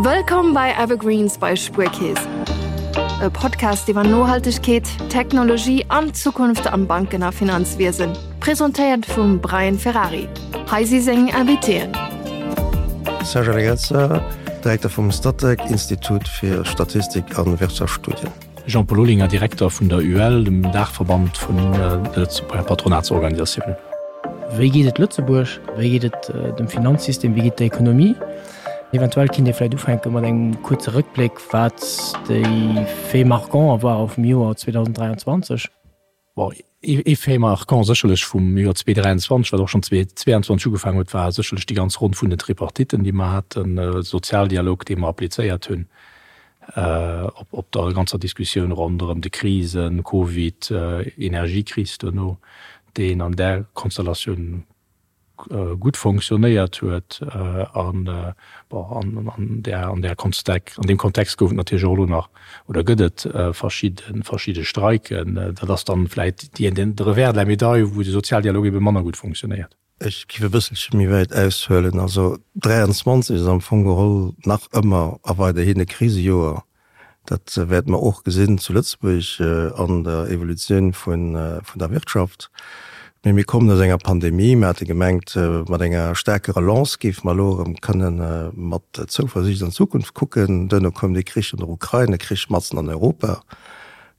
Wëllkomm bei Evergreens bei Spuerkeess. E Podcast iwwer Nohaltegkeet, Technologie an d'Zukunft am Banken a Finanzwiesen. Presentéiert vum Brian Ferrari. Hei si seng Invitéen. Serge Allegrezza, Direkter vum Statec, Institut fir Statistik a Wirtschaftsstudien. Jean-Paul Olinger, Direkter vun der UEL, dem Daachverband vun de Lëtzebuerger Patronatsorganisatiounen. Wéi geet et Lëtzebuerg? Wéi geet et dem Finanzsystem? Wéi geet et der Ekonomie? Eventuell kinnt Dir vläicht ufänke mat engem kuerze Rëckbléck, wat déi Faits marquants ware vum Joer 2023. Bon, ee Fait marquant sécherlech vum Joer 2023, wat och schonn 2022 ugefaangen huet, war sécherlech déi ganz Ronn vun den Tripartitten, déi mer haten, de Sozialdialog, dee mer applizéiert hunn op der ganzer Diskussioun ronderëm de Krisen, Covid, Energiekris duerno, deen an där Konstellatioun gutt fonctionnéiert huet an, bon, an där, an där Konstek, an deem Kontext gouf et natierlech och elo nach oder gëtt et verschidde, verschidde Streiken. Dat ass dann vläit déi, den, de Revers de la médaille, wou de Sozialdialog ebe manner gutt fonctionnéiert. Ech géif e bësselche méi wäit aushuelen. Also 23 ass am Fong geholl nach ëmmer a weiderhin e Krisejoer. Dat wäerte mer och gesinn zu Lëtzebuerg an der Evolutioun vun der Wirtschaft. Mee mir kommen aus enger Pandemie. Mir hate gemengt, mat enger staarker Relance géife mer elo erëm kënne mat Zouversiicht an d'Zukunft kucken. Duerno koum de Krich an der Ukrain, e Krich matzen an Europa,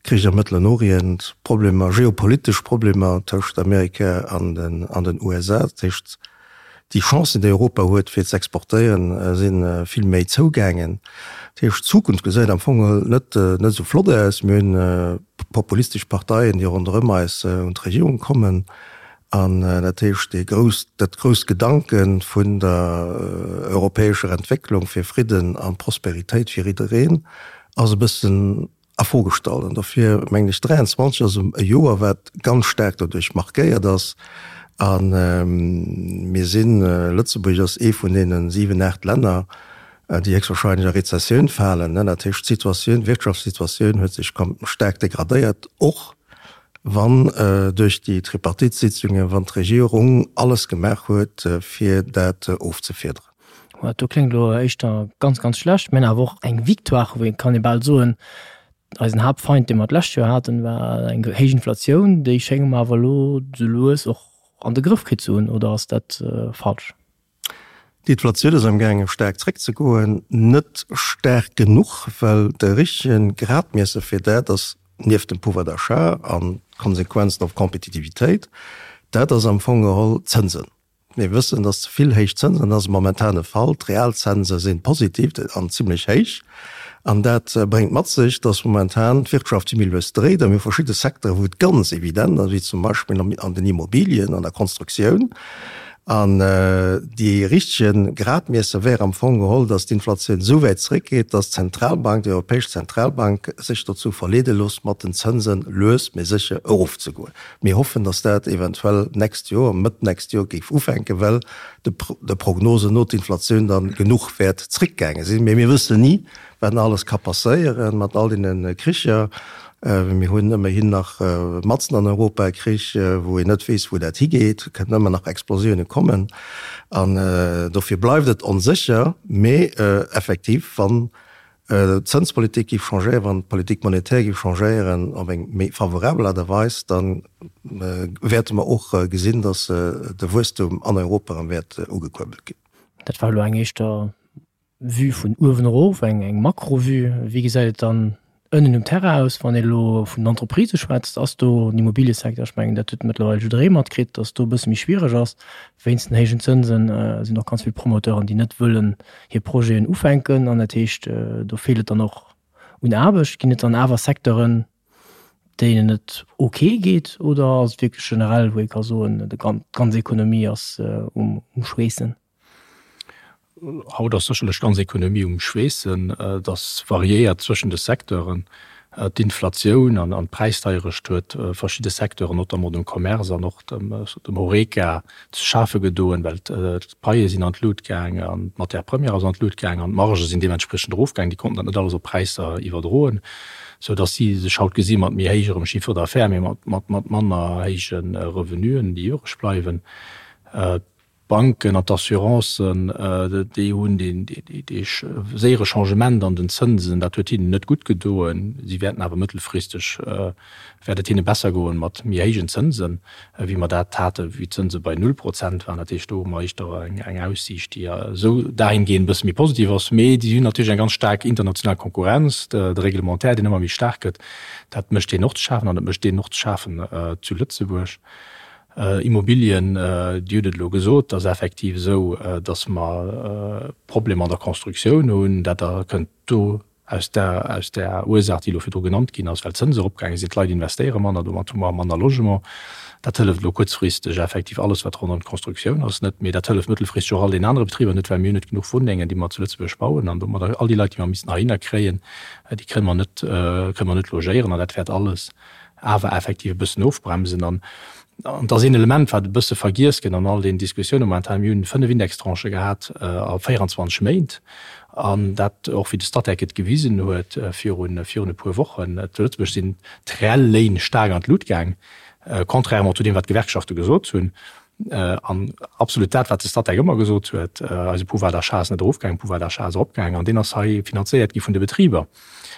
Krich am Mëttelen Orient, Problemer, geopolitesch Problemer tëscht Amerika an den USA. Dat heescht, Déi Chancen, déi Europa huet, fir ze exportéieren, si vill méi zougaangen. Dat heescht, d'Zukunft gesäit am Fong geholl net net esou flott aus. Mir hunn populistesch Parteien, déi ronderëm eis un d'Regierung kommen. An dat heescht, dee grouss, dat grousst Gedanke vun der europäescher Entwécklung fir Fridden a Prosperitéit fir jiddereen ass e bëssen a Fro gestallt. An dofir mengen ech, 23 ass e Joer, wat ganz staark doduerch markéiert ass. A mir sinn, Lëtzebuerg ass ee vun deene 7, 8 Länner, déi héchstwahrscheinlech a Rezessioun falen. Dat heescht, d'Situatioun, d'Wirtschaftssituatioun huet sech staark degradéiert, och wann duerch déi Tripartite-Sitzungen, wann d'Regierung alles gemaach huet, fir dat ofzefiederen. Dat do kléngt elo éischter ganz, ganz schlecht. Mir hunn awer och eng Victoire, wou ee kann ee bal soen, eisen Haaptfeind, dee mer d'lescht Joer haten, war eng héich Inflatioun. Déi schénge mer awer elo sou lues och an de Grëff kritt ze hunn, oder ass dat falsch? D'Inflatioun ass amgaange staark zréckzegoen. Net staark genuch, well de richtege Gradmiesser fir dat ass nieft dem Pouvoir d'achat an d'Konsequenzen op d'Kompetitivitéit, dat ass am Fong geholl d'Zënsen. Mir wëssen, dass ze vill héich Zënsen, dat ass momentan de Fall, d'Realzënse si positiv an zimlech héich. An dat bréngt mat sech, dass momentan d'Wirtschaft méi lues dréit. A mir hu verschidde Secteuren, wou et ganz evident ass, wéi zum Beispill an den Immobilien, an der Konstruktioun. An dee richtege Gradmiesser wär am Fong geholl, dass d'Inflatioun esou wäit zréckgeet, dass d'Zentralbank, déi Europäesch Zentralbank sech dozou verleede loosst, mat den Zënse lues mee sécher erofzegoen. Mir hoffen, dass dat eventuell d'nächst Joer, Mëtt d'nächst Joer géif ufänken, well de Prognosen no d'Inflatioun da genuch wäert zréckgaange sinn. Mee mir wëssen ni, wat nach alles ka passéieren mat all deene Kricher. Mir hunn ëmmerhin nach matzen an Europa e Krich, wou een net weess, wou dat higeet. Et kënnen ëmmer nach Explosioune kommen. An dofir bleift et onsécher. Mee effektiv, wann d'Zënspolitik géif changéieren, wann d'Politique monétaire géif changéieren op eng méi favorabel Aart a Weis, da wäerte mer och gesinn, datt de Wuesstum an Europa erëm wäert ugekuerbelt ginn. Dat war elo eng éischter Vue vun uewen erof, eng Makro-Vue. Wéi gesäit et dann ënnen um Terrain aus, wann ee elo vun den Entreprisë schwätzt? Ass do den Immobiliësecteur, ech mengen dat huet mëttlerweil jidderee matkritt, datt do e bësse méi schwiereg ass wéinst den héijen Zënsen, sinn och ganz vill Promoteuren, déi net wëllen hir Projeten ufänken an dat heescht, do feelt et dann och un Aarbecht. Ginn et dann awer Secteuren, deenen et ok geet oder ass et wierklech generell, wou ee ka soen, d'ganz Ekonomie ass um Schweessen? Haut ass sécherlech d'ganz Ekonomie um Schweessen. Et ass variéiert zwëschen de Secteuren. D'Inflatioun an d'Präisdeierecht huet verschidde Secteuren, notamment dem Commerce an och dem Horeca, ze schafe gedoen, well d'Paie sinn an d'Lut gaang an d'Matière première ass an d'Lut gaang an d'Margë sinn deementspriechend erofgaang. Déi konnten dat net alles op Präisser iwwerdroen, sou datt si sech haut gesi mat méi héijerem Chiffre d'affaires, mee mat manner héije Revenuen, déi iwwereg bleiwen. D'Banken an d'Assurancen, déi hunn dee séiere Changement an den Zënsen, dat huet hinnen net gutt gedoen. Si wäerten awer mëttelfristeg, wäert et hinne besser goen mat méi héijen Zënsen, wéi mer dat haten, wéi d'Zënse bei null Prozent waren. Dat heescht, do hu mer éischter eng Aussiicht, déi esou dahingehend e bësse méi positiv ass. Mee déi hunn natierlech eng ganz staark international Konkurrenz, de Reglementaire, deen ëmmer méi staark gëtt, dat mécht deenen och ze schafen an dat mécht deenen och ze schafen zu Lëtzebuerg. Immobilien, Dir hutt et elo gesot, et ass effektiv esou, datt mer Problemer an der Constructioun hunn. Dat kënnt do aus der aus där Ursaach, déi elo virdru genannt ginn ass, well d'Zënse eropgaange sinn, d'Leit investéiere manner, domat hu mer manner Logement. Dat hëlleft elo kuerzfristeg effektiv alles, wat ronderëm d'Constructioun ass, net, mee dat hëlleft mëttelfristeg och all deenen anere Betriber net, well mir hunn net genuch Wunnengen, déi mer zu Lëtzebuerg bauen an domadder all déi Leit, déi mer missten heihinner kréien, déi kënne mer net kënne mer net logéieren an dat wäert alles awer effektiv e bëssen ofbremsen. An et ass een Element, wat e bësse vergiess gëtt an all deenen Diskussiounen momentan, Mir hunn 5 Indextranchë gehat a 24 Méint, an dat och, wéi de Statec et gewisen huet virun virun e puer Wochen, zu Lëtzebuerg sinn d'reell Léin staark an d'Lut gaang, contrairement zu deem, wat d'Gewerkschafte gesot hunn. An absolut dat, wat de Statec ëmmer gesot huet, eise Pouvoir d'achat ass net erofgaangen, Pouvoir d'achat ass eropgaangen an deen ass hei finanzéiert gi vun de Betriber.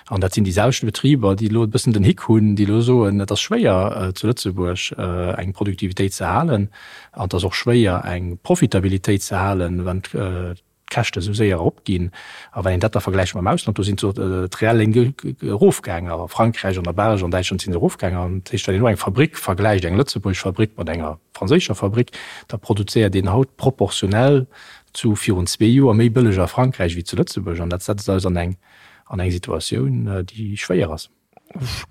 An dat sinn déi selwechte Betriber, déi elo e bëssen den Hick hunn, déi elo soen, et ass schwéier zu Lëtzebuerg eng Produktivitéit ze halen an et ass och schwéier eng Profitabilitéit ze halen, wann d'Käschte esou séier eropginn. A wann een dat da vergläicht mam Ausland, do sinn d'reell Léin erofgaangen, a Frankräich, an der Belsch, an Däitschland si se erofgaangen. An dat heescht, wann een elo eng Fabrick vergläicht, eng lëtzebuergesch Fabrick mat enger franséischer Fabrick, da produzéiert een haut proportionell zu virun zwee Joer méi bëlleg a Frankräich wéi zu Lëtzebuerg. An dat setzt eis an eng an eng Situatioun, déi schwéier ass.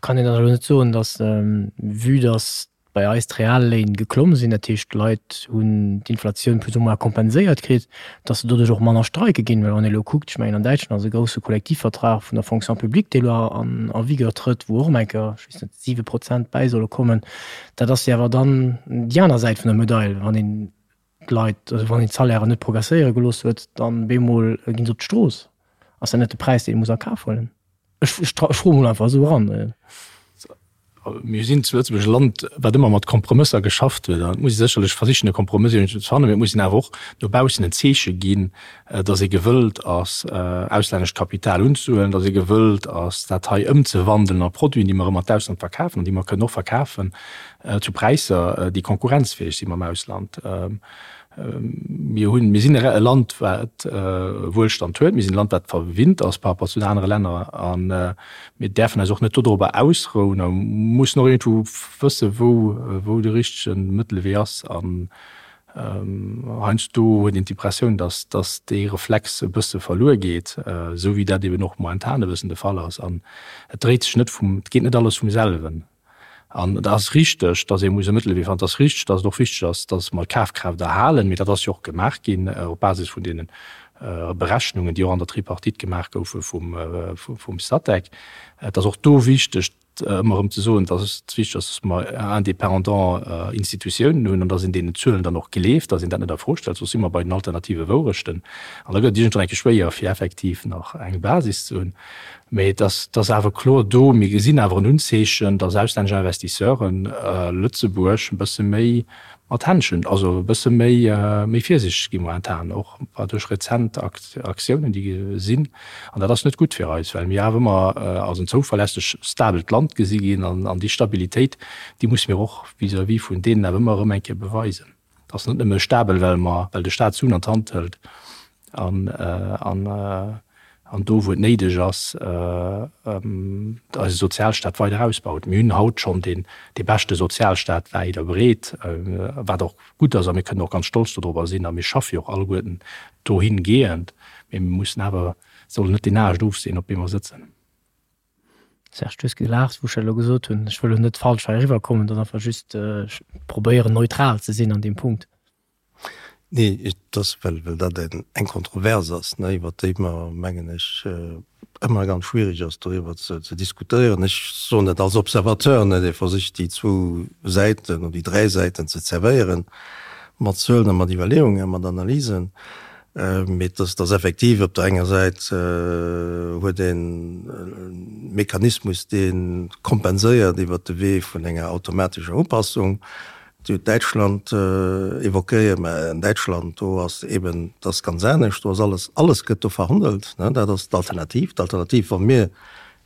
Kann een dann elo net soen, datt, vue datt bei eis d'Realléin geklomm sinn, dat heescht d'Leit hunn d'Inflatioun plus ou moins kompenséiert kritt, datt se doduerch och manner streike ginn. Well wann ee elo kuckt, ech mengen an Däitschland ass e grousse Kollektivvertrag vun der Fonction publique, dee elo an en vigueur trëtt, wou och ëm eng Kéier, ech weess net, 7 Prozent bäi solle kommen. Dat ass jo awer dann déi aner Säit vun der Medail, wann een d'Leit, also wann een d'Salairen net progresséiere gelooss huet, dann bemol ginn se op d'Strooss. Ass dat net de Präis, deen ee muss a Kaf huelen? Ech froe mol einfach esou eran. Mir sinn zu Lëtzebuerg e Land, wat ëmmer mat Kompromësser geschafft huet. An et muss ee sécherlech versichen, e Kompromëss iergendwou ze fannen, mee et muss een awer och no baussen en Zeeche ginn, datt ee gewëllt ass, auslännescht Kapital unzehuelen, datt ee gewëllt ass, dat hei ëmzewandelen a Produiten, déi mer erëm an d'Ausland verkafen an déi mer kënnen och verkafen zu Präisser, déi konkurrenzfäeg si mam Ausland. Mir hunn, mir sinn e Land, wat Wuelstand huet. Mir sinn e Land, wat verwinnt ass par rapport zu den anere Länner. A mir däerfen eis och net dodrober ausrouen a mussen och iergendwou wëssen, wou, wou de richtege Mëttelwee ass. An heiansdo huet een d'Impressioun, dass, dass dee Reflex e bësse verluer geet, esou wéi dat eben och momentan e bëssen de Fall ass. An et dréit sech net vum, et geet net alles vum selwen. An et ass richteg, datt ee muss e Mëttelwee fannen. Et ass richteg, datt et och wichteg ass, datt mer d'Kafkraaft erhalen. Mee dat ass jo och gemaach ginn op Basis vun deene Berechnungen, déi och an der Tripartite gemaach goufe vum Statec. Et ass och do wichteg, ëmmer erëm ze soen, datt et wichteg ass, datt mer indépendant Institutiounen hunn an datt een deenen Zuelen dann och gleeft, datt een dat net a Fro stellt, soss si mer bei den alternative Wourechten. An da gëtt et iergendwann eng Kéier schwéier, fir effektiv nach eng Basis ze hunn. Mee et ass, et ass awer kloer do, mir gesinn awer en Unzeechen, dass auslännesch Investisseuren Lëtzebuerg e bësse méi mat Händschen, also e bësse méi, méi virsiichteg gi momentan, och duerch rezent Aktiounen, déi sinn. An dat ass net gutt fir eis, well mir awer ëmmer als en zouverlässeg, stabelt Land gesi ginn. An déi Stabilitéit, déi musse mir och vis-à-vis vun deenen awer ëmmer erëm eng Kéier beweisen. Et ass net nëmme stabel, well mer, well de Staat Suen an d'Hand hëlt an, an, an do, wou et néideg ass, eise Sozialstaat weider ausbaut. Mir hunn haut schonn deen, dee beschte Sozialstaat wäit a breet, wat och gutt ass a mir kënnen och ganz stolz dodrobber sinn a mir schaffe jo och alleguerten dohingehend. Mee mir mussen awer, sollen net deen Aascht ofsinn, op deem mer sëtzen. Serge, du hues gelaacht, wou ech dat elo gesot hunn. Ech wëll elo net falsch hei eriwwerkommen, dat ass einfach just, ech probéieren neutral ze sinn an deem Punkt. Nee, et ass, well, well dat eng Kontrovers ass, ne, iwwert déi mer, mengen ech, ëmmer ganz schwierig ass, doriwwer ze, ze diskutéieren. Ech soen dat als Observateur, ne, dee versicht, déi zwou Säiten oder déi dräi Säiten ze zerwéieren, mat Zuelen a mat Iwwerleeungen, mat Analysen. Mee et ass effektiv, op der enger Säit huet een e Mechanismus, dee kompenséiert iwwert de Wee vun enger automatescher Upassung. Dir hutt Däitschland évoquéiert, mä an Däitschland, do ass eben, dat ass ganz anescht, do ass alles, alles gëtt do verhandelt. Dat ass d'Alternativ. D'Alternativ, wa mir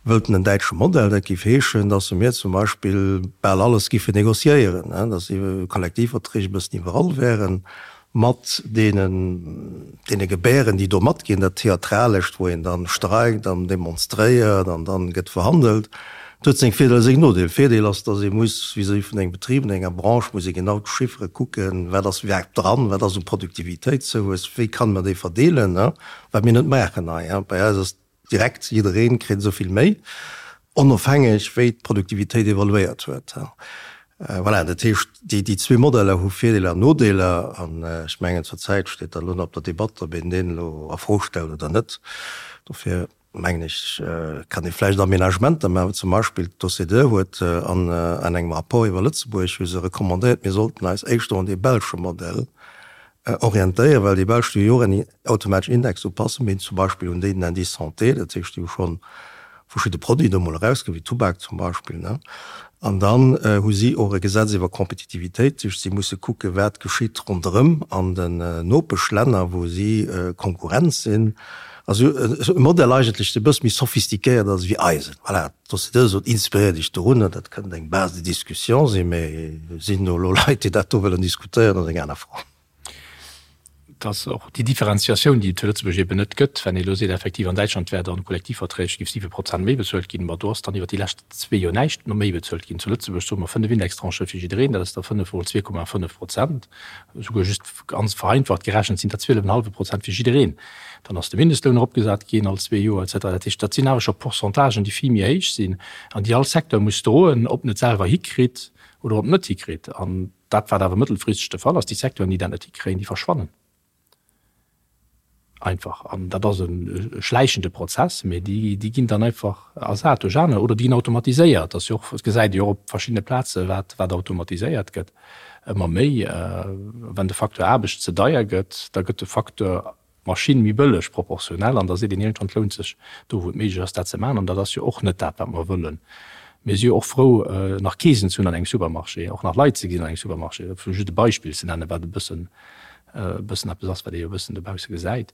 wëllten en däitsche Modell, dat géif heeschen, datt mir zum Beispill bal alles géifen négociéieren, datt Kollektivverträg e bëssen iwwerall wären, mat deenen, deene Gebären, déi do matginn, dat Theatralescht, wou een dann streikt an demonstréiert an dann gëtt verhandelt. Dat huet seng Virdeeler, seng Nodeeler. Virdeel ass, datt ee muss vis-à-vis vun engem Betrib, an enger Branche muss ee genau d'Chiffere kucken, wat ass iwwerhaapt dran, wat ass u Produktivitéitszouwuess, wéi kann mer déi verdeelen, wat mir net maachen hei. Bei eis ass Direkt, jiddereen kritt esou vill méi, onofhängeg wéi d'Produktivitéit evoluéiert huet. Voilà, dat heescht, déi zwee Modeller hu Virdeeler an Nodeeler. An ech mengen, zur Zäit steet dat elo nach op der Debatt, ob een deen elo a Fro stellt oder net. Dofir mengen ech, kann ee vläicht Aménagementer maachen. Zum Beispill d'OCDE huet an engem Rapport iwwer Lëtzebuerg hu se recommandéiert, mir sollten eis éischter un dee belsche Modell orientéieren, well déi Belsch déi hu jo och eng automatesch Indexupassung, mee zum Beispill un den Indice santé, dat heescht déi hu schonn verschidde Produiten do mol erausginn, wéi Tubak zum Beispill, ne. An dann hu si och e Gesetz iwwer Kompetitivitéit, dat heescht si musse kucken, wat geschitt ronderëm an den Nopeschlänner, wou si Konkurrenz sinn. Also e Modell eigentlech, dee e bësse méi sophistiquéiert ass wéi eisen. Voilà. D'OCDE sot, inspiréiert Iech dorunner, dat kënnt eng Base de discussion sinn, mä sinn do elo Leit, déi dat do wëllen diskutéieren, ass eng aner Fro. Et ass och déi Differenziatioun, déi et zu Lëtzebuerg eben net gëtt, wenn ee elo seet, effektiv an Däitschland wär dann Kollektivverträg géif 7 Prozent méi bezuelt ginn, ma do ass dann iwwer déi lescht zwee Joer näischt méi bezuelt ginn. Zu Lëtzebuerg soe mer 5 Indextranchë fir jiddereen, dat ass da 5 mol 2,5 Prozent, esouguer just ganz vereinfacht gerechent sinn dat 12,5 Prozent fir jiddereen. Dann ass de Mindestloun eropgesat ginn all zwee Joer et cetera. Dat heescht, dat sinn awer scho Pourcentagen, déi vill méi héich sinn an déi all Secteur muss droen, ob en et selwer hikritt oder ob en et net hikritt. An dat, wat awer mëttelfristeg de Fall ass, déi Secteuren, déi dat net hikréien, déi verschwannen einfach. An dat ass e schläichende Prozess, mee déi ginn dann einfach ersat duerch aner oder déi ginn automatiséiert. Dat ass jo och, dat gesäit ee jo och op verschiddene Plaze wat wat automatiséiert gëtt ëmmer méi. Wenn de Facteur Aarbecht ze deier gëtt, da gëtt de Facteur Maschinn méi bëlleg proportionell an da seet een iergendwann, et lount sech do wou et méiglech ass dat ze maachen. An dat ass jo och net dat wat mer wëllen. Mir si jo och frou nach Keesen ze hunn an engem Supermarché, och nach Leit ze gesinn an engem Supermarché, fir just e Beispill ze nennen, wat e bëssen e bëssen eppes ass wat ee jo e bëssen dobausse gesäit.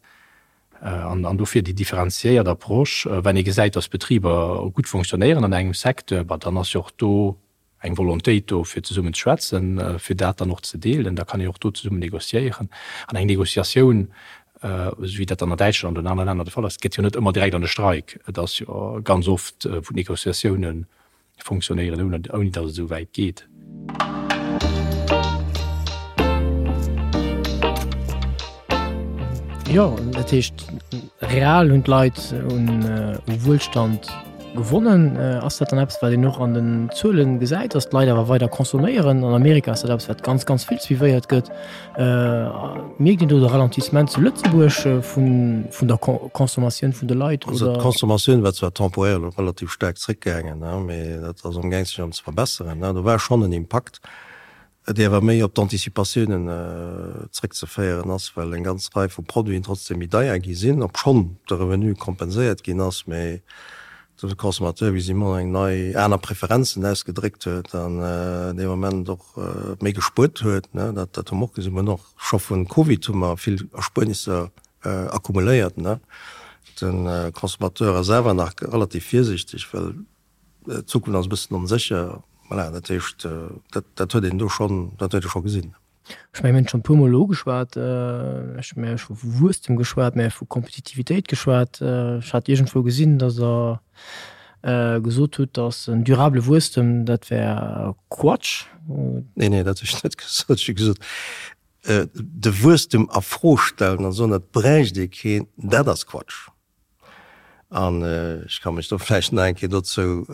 An dofir déi differenziéiert Approche, wenn ee gesäit, datt Betriber gutt fonctionnéieren an engem Secteur, bah dann ass jo och do eng Volontéit do fir zesummen ze schwätzen, fir dat dann och ze deelen. Da kann een och do zesummen négociéieren. An eng Négociatioun, esou wéi dat dann an Däitschland oder an anere Länner de Fall ass, gëtt jo net ëmmer direkt an e Streik. Et ass jo ganz oft, wou d'Négociatiounen fonctionnéieren, ouni datt et esou wäit geet. Jo, dat heescht, real hunn d'Leit un Wuelstand gewonnen. Ass dat dann eppes, wat een och an den Zuelen gesäit, datt d'Leit awer weider consomméieren? An Amerika ass dat eppes, wat ganz, ganz vill suivéiert gëtt. Mierkt een do de Ralentissement zu Lëtzebuerg vun der Consommatioun vun de Leit? Also d'Consommatioun war zwar temporär elo relativ staark zréckgaangen, mee dat ass amgaang sech erëm ze verbesseren. Do war schonn en Impakt, dee awer méi op d'Anticipatiounen zréckzeféieren ass, well eng ganz Rei vu Produiten trotzdem méi deier gi sinn, obschonn de Revenu kompenséiert ginn ass, mee de Consommateur visiblement eng nei, aner Preferenzen ausgedréckt huet an dee Moment och méi gespuert huet. Dat, dat hu mer och gesinn. Mer hunn och scho vun Covid hu mer vill Erspuernisser accumuléiert. De Consommateur ass awer nach relativ virsiichteg, well d'Zukunft ass e bëssen onsécher. Voilà, dat heescht, dat, dat huet een do schonn, dat huet ee scho gesinn. Ech mengen, mir hunn et schonn e puermol elo ugeschwat, ech hu mir scho vu Wuesstem geschwat, mir hu vu Kompetitivitéit geschwat. Ech hat iergendwou gesinn, datt Der gesot hutt, datt en durable Wuesstem, dat wär Quatsch. Nee, nee, dat hu ech net gesot. Ech hu gesot, de Wuesstem a Fro stellen an soen, et bräicht ee keen, dat ass Quatsch. An ech ka mech do vläicht nach eng Kéier dozou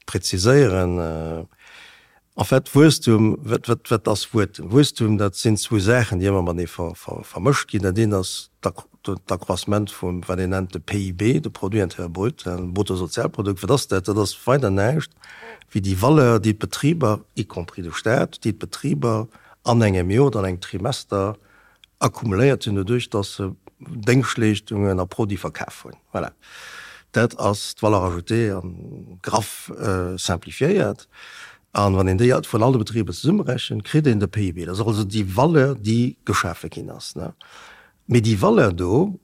präziséieren. En fait, Wuesstum, wat, wat, wat ass Wuesstum? Wuesstum, dat sinn zwou Saachen, déi ëmmer matenee ver, ver, vermëscht ginn. Dat eent ass d'Accroissement vum, wat een nennt de PIB, de Produit intérieur brut, Bruttosozialprodukt. Wat ass dat? Dat ass weider näischt wéi déi Valeur, déi d'Betriber, y compris de Staat, déi d'Betriber an engem Joer oder an engem Trimester akkumuléiert hunn, doduerch dass se Déngschtleeschtungen a Produite verkaf hunn. Voilà, dat ass d'Valeur ajoutée an graff simplifiéiert. An wann een déi vun alle Betriber zesummerechent, kritt een de PIB. Dat ass also déi Valeur, déi geschafe ginn ass. Mee déi Valeur do,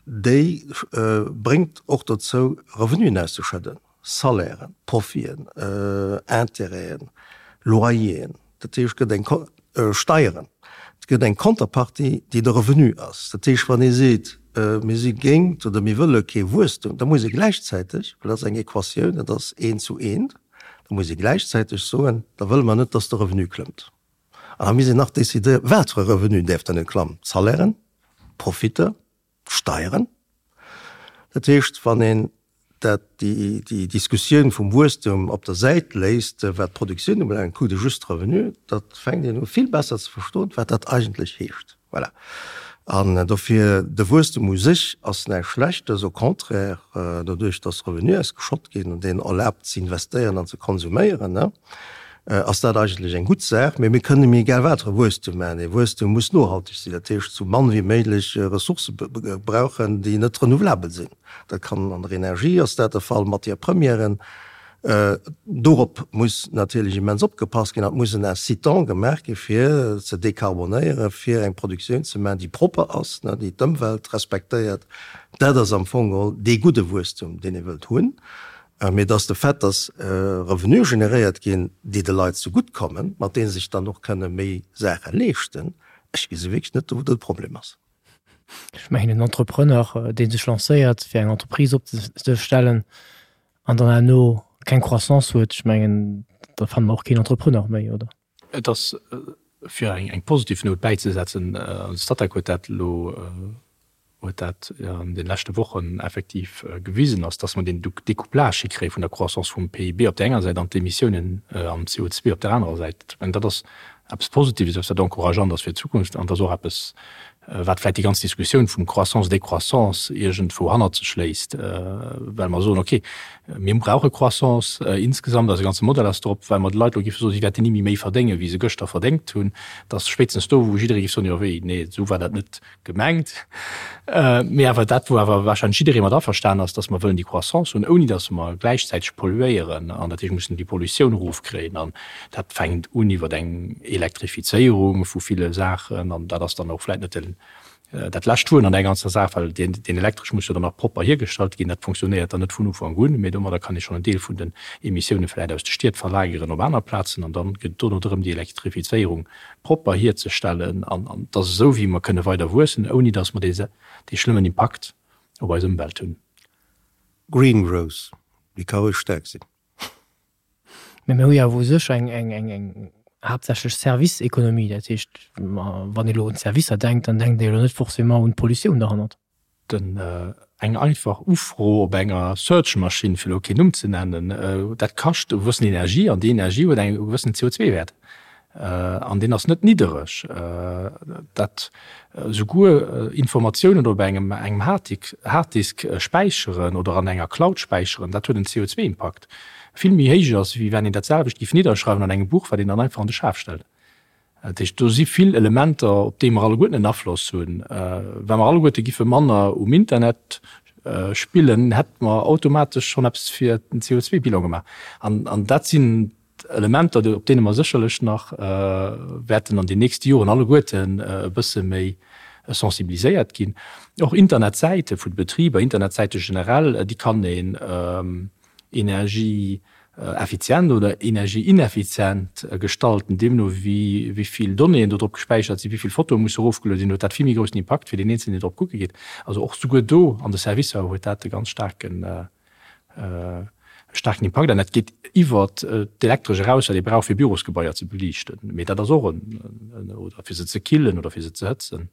déi bréngt och dozou, Revenuen auszeschëdden, Salairen, Profiten, Intérêten, Loyeren. Dat heescht, et gëtt eng Steieren, et gëtt eng Konterpartie, déi de Revenu ass. Dat heescht, wann ee seet, mir si géint oder mir wëlle kee Wuesstum, da muss ee gläichzäiteg, well dat ass eng Equatioun, dat ass eent zu eent, Da muss ee gläichzäiteg soen, da wëlle mer net, dass de Revenu klëmmt. An da misst een nach decidéieren, wat fir e Revenu däerf dann net klammen, d'Salairen, d'Profitter, d'Steieren. Dat heescht, wann een dat, déi, déi Diskussioun vum Wuesstum op der Säit léisst, wat d'Produktioun ubelaangt, kuckt ee just de Revenu, da fänkt een u vill besser ze verstoen, wat dat eigentlech heescht. Voilà. An dofir, de Wuesstem u sech ass näischt Schlechtes, au contraire, doduerch datt Revenue ausgeschott ginn an deen erlaabt ze investéieren an ze konsuméieren, ass dat eigentlech eng gutt Saach. Mee mir kënnen, mir egal wat fir e Wuesstem maachen, dee Wuesstem muss nohalteg sinn, dat heescht sou mann wéi méiglech Ressourcë brauchen, déi net renouvelabel sinn. Dat kann an der Energie ass dat de Fall, Matières premièren. Dorop muss natierlech immens opgepasst ginn an et muss en Incitant gemaach gi fir ze decarbonéieren, fir eng Produktioun ze maachen, déi propper ass, déi d'Ëmwelt respektéiert. Dat ass am Fong geholl dee gudde Wuesstum, deen ee wëllt hunn. Mee et ass de Fait, datt Revenue generéiert ginn, déi de Leit zegutt kommen, mat deene se sech dann och kënne méi Saache leeschten. Ech gesi wierklech net, wou do de Problem ass. Ech mengen, en Entrepreneur, dee sech lancéiert, fir eng Entreprise opzestellen, an dann herno keng Croissance huet, ech mengen, da fanne mer och keen Entrepreneur méi, oder? Et ass, fir eng positiv Nout bäizesetzen, an de Statec huet dat elo, huet dat an de leschte Wochen effektiv gewisen, ass, dass mer deen Découplage hikréie vun der Croissance vum PIB op där enger Säit an d'Emissiounen an CO2 op där anerer Säit. Ech mengen, dat ass eppes Positives, eppes wat encourageant ass fir d'Zukunft an et ass och eppes, wat vläicht déi ganz Diskussioun vum Croissance, Décroissance iergendwou hannert sech léisst, well mer soen, okay, mir brauche Croissance insgesamt, eise ganze Modell ass drop, well mer de Leit elo géife soen, si wäerten ni méi méi verdéngen, wéi se gëschter verdéngt hunn, dass spéitstens do, wou jidderee géif soen, jo wéi, nee, esou war dat net gemengt. Mee awer dat, wou awer wahrscheinlech jidderee mat averstanen ass, dass mer wëllen déi Croissance hunn, ouni dass mer gläichzäiteg polluéieren an dat heescht, mussen déi Pollutioun erofkréien. An dat fänkt un iwwer eng Elektrifizéierung vu ville Saachen an dat ass dann och vläicht net den, dat lescht Wuert an där ganzer Saach, well deen, deen Elektresch muss jo dann nach propper hiergestallt ginn. Dat funktionéiert dann net vun Ufank un, mee domadder kann ee schonn en Deel vun den Emissiounen vläicht aus de Stied verlageren op aner Plazen an dann gëtt et dono drëm, déi Elektrifizéierung propper hierzestellen an an et ass esou wéi mer kënne weider wuessen, ouni datt mer dee dee schlëmmen Impakt op eis Ëmwelt hunn. Green growth, déi ka roueg staark sinn. Mä mir hu jo awer u sech eng eng eng eng haaptsächlech Service-Ekonomie. Dat heescht, wann ee elo un d'Servicer denkt, dann denkt ee jo elo net forcément un d'Pollutioun derhannert. Den eng einfach Ufro op enger Search-Maschinn, fir elo keen Numm ze nennen, dat kascht e gewëssen Energie an déi Energie huet eng gewëssen CO2-Wäert an deen ass net niddereg. Dat souguer Informatiounen op engem engem Harddisk späicheren oder an enger Cloud späicheren, dat huet en CO2-Impakt vill méi héich ass, wéi wann een dat selwecht géif nidderschreiwen an engem Buch, wat een dann einfach an de Schaf stellt. Dat heescht, do si vill Elementer, op déi mer alleguerten en Afloss hunn. Wa mer alleguerte giffe manner um Internet spillen, hätte mer automatesch schonn eppes fir den CO2-Bilan gemaach. An dat sinn Elementer, op deene mer sécherlech nach wäerten an den nächste Joren alleguerten e bësse méi sensibiliséiert ginn. Och Internetsäite vun de Betriber, Internetsäite generell, déi kann een energieeffizient oder energieineffizient gestalten, deemno wéi wéi vill Donnéeën do drop gespäichert sinn, wéi vill Fotoe musse erofgeluede sinn, huet dat vill méi groussen Impakt fir deen Eenzelnen, deen drop kucke geet. Also och souguer do an de Servicer huet dat e ganz staarken staarken Impakt an dat geet iwwert d'Elektresch eraus, wat ee brauch fir Bürosgebaier ze beliichten, mee dat ass och en, oder fir se ze killen oder fir se ze hëtzen.